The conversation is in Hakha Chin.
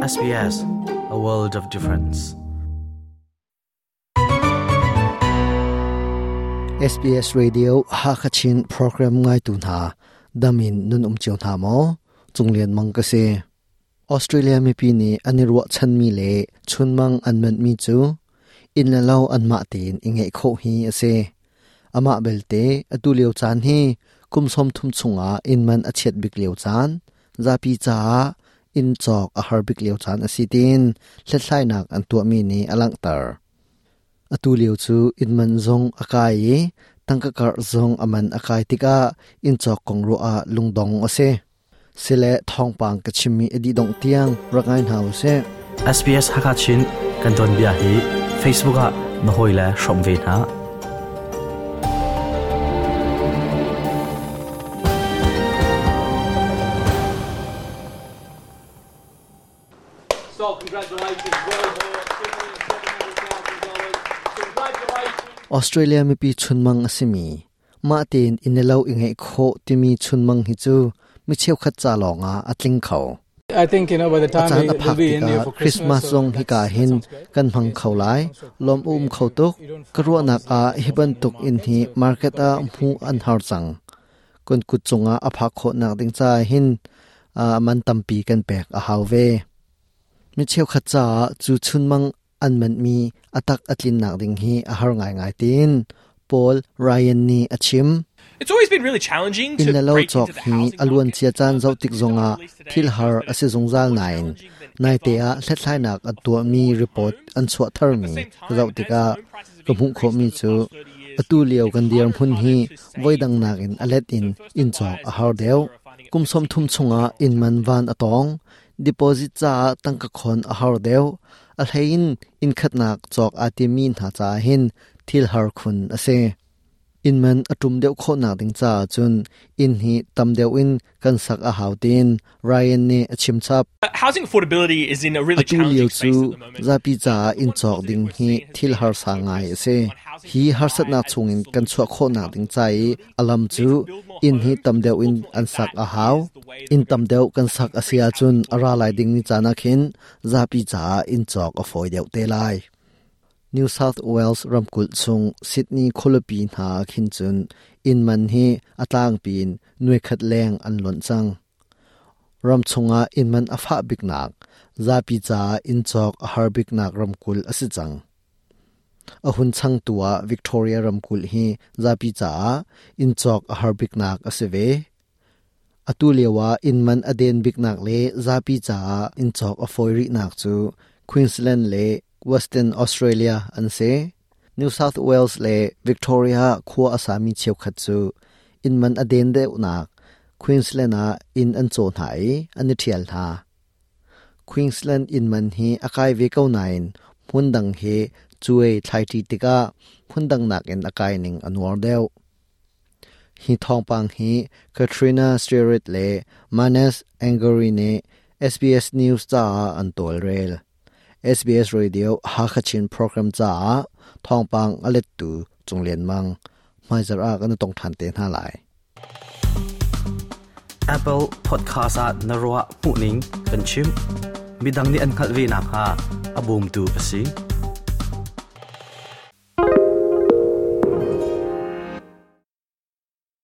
SBS, a world of difference. SBS Radio Hakachin program ngai tu hna damin nun um cio hna maw Cunglian Mang ka si Australia mipi nih an i ruahchanmi le chunmang an manhmi cu inn le lo anmah tein i ngeih khawh hi a si. Amah belte, atu lio caan hi kum 30 chungah inn man a chiat bik lio caan, zapi caah inn cawk a har bik lio caan a si tiin hlathlainak an tuahmi nih a langhter. Atu lio cu inn man zong a kai i tangka karh zong a man a kai tikah inn cawk kong ruah ah lungdong a si. Sile thawngpang ka chimmi a dih dongh tiang rak ngai hna usih. SBS Hakachin kan tuanbia hi Facebook ah na hawile hrawm ve hna. So congratulations, Australia mipi chunmang a simi Mah tein inn le lo i ngeih khawh timi chunmang hi cu mi cheukhat ca lawngah a tling kho. I think you know by the time a caan a phak tikah Christmas zong hika hin kan hmang kho lai. Lawm um kho tuk. Ka ruahnak ah hi bantuk inn hi market ah hmuh an har cang. Kan kut cungah a phak khawhnak ding caah hin man tampi kan pek a hau ve. Mi cheukhat caah cu chunmang an manhmi a tak a tlinnak ding hi a har ngaingai tiin Paul Ryan nih a chim. Inn le lo cawk hi a luancia caan zoh tik zongah thil har a si zungzal nain naite ah hlathlainak an tuahmi report an chuah tharmi ka zoh tikah ka hmuh khawhmi cu atu lio kan dirhmun hi voidang nakin a let in inn cawk a har deuh. Kum 30 chungah inn man van a tawng. Deposit caah tangka khon a har deuh. A hlei in inn khatnak cawk aa timmi hna caah hin thil har khun a si. Inn man a ṭum deuh khawhnak ding caah cun inn hi tam deuh in kan sak a hau tiin Ryan nih a chim chap. Housing affordability is in a really Atu lio challenging cu space at the moment. zapi caah inn cawk ding hi thil harsa ngai a si. Hi harsatnak chungin kan chuah khawhnak ding ca i a lam cu inn hi tam deuh in an sak a hau. Inn tam deuh kan sak a si ahcun a ra lai dingmi caan ah khin zapi caah inn cawk a fawi deuh te lai. New South Wales ramkulh chung Sydney khualipi hna ah khin cun inn man hi a tlangpi in nuaikhat leng an lonh cang. Ram chungah inn man a fah biknak, zapi caah inn cawk a har biknak ramkulh a si cang. A hun changtu ah Victoria ramkulh hi zapi caah inn cawk a har biknak a si ve. Atu lio ah inn man a den biknak le zapi caah inn cawk a fawi rihnak cu Queensland le Western Australia an si. New South Wales le Victoria khua a sami cheukhat cu inn man a den deuhnak Queensland ah inn an caw hna i an i ṭhial hna. Queensland inn man hi a kai ve ko nain hmundang he cuai thlaiṭi tikah hmundang nakin a kai ning a nuar deuh. Hi thawngpang hi Katrina Sterritt le Manes Angori nih SBS News caah an tawlrel. SBS Radio Hakha Chin program caah thawngpang a lettu Cung Lian Mang. Hmaizarh ah kan i tong ṭhan te hna lai. Apple Podcast ah na ruah hmuhning kan chim. Midang nih an hngalh ve nakhnga a bawmtu a si.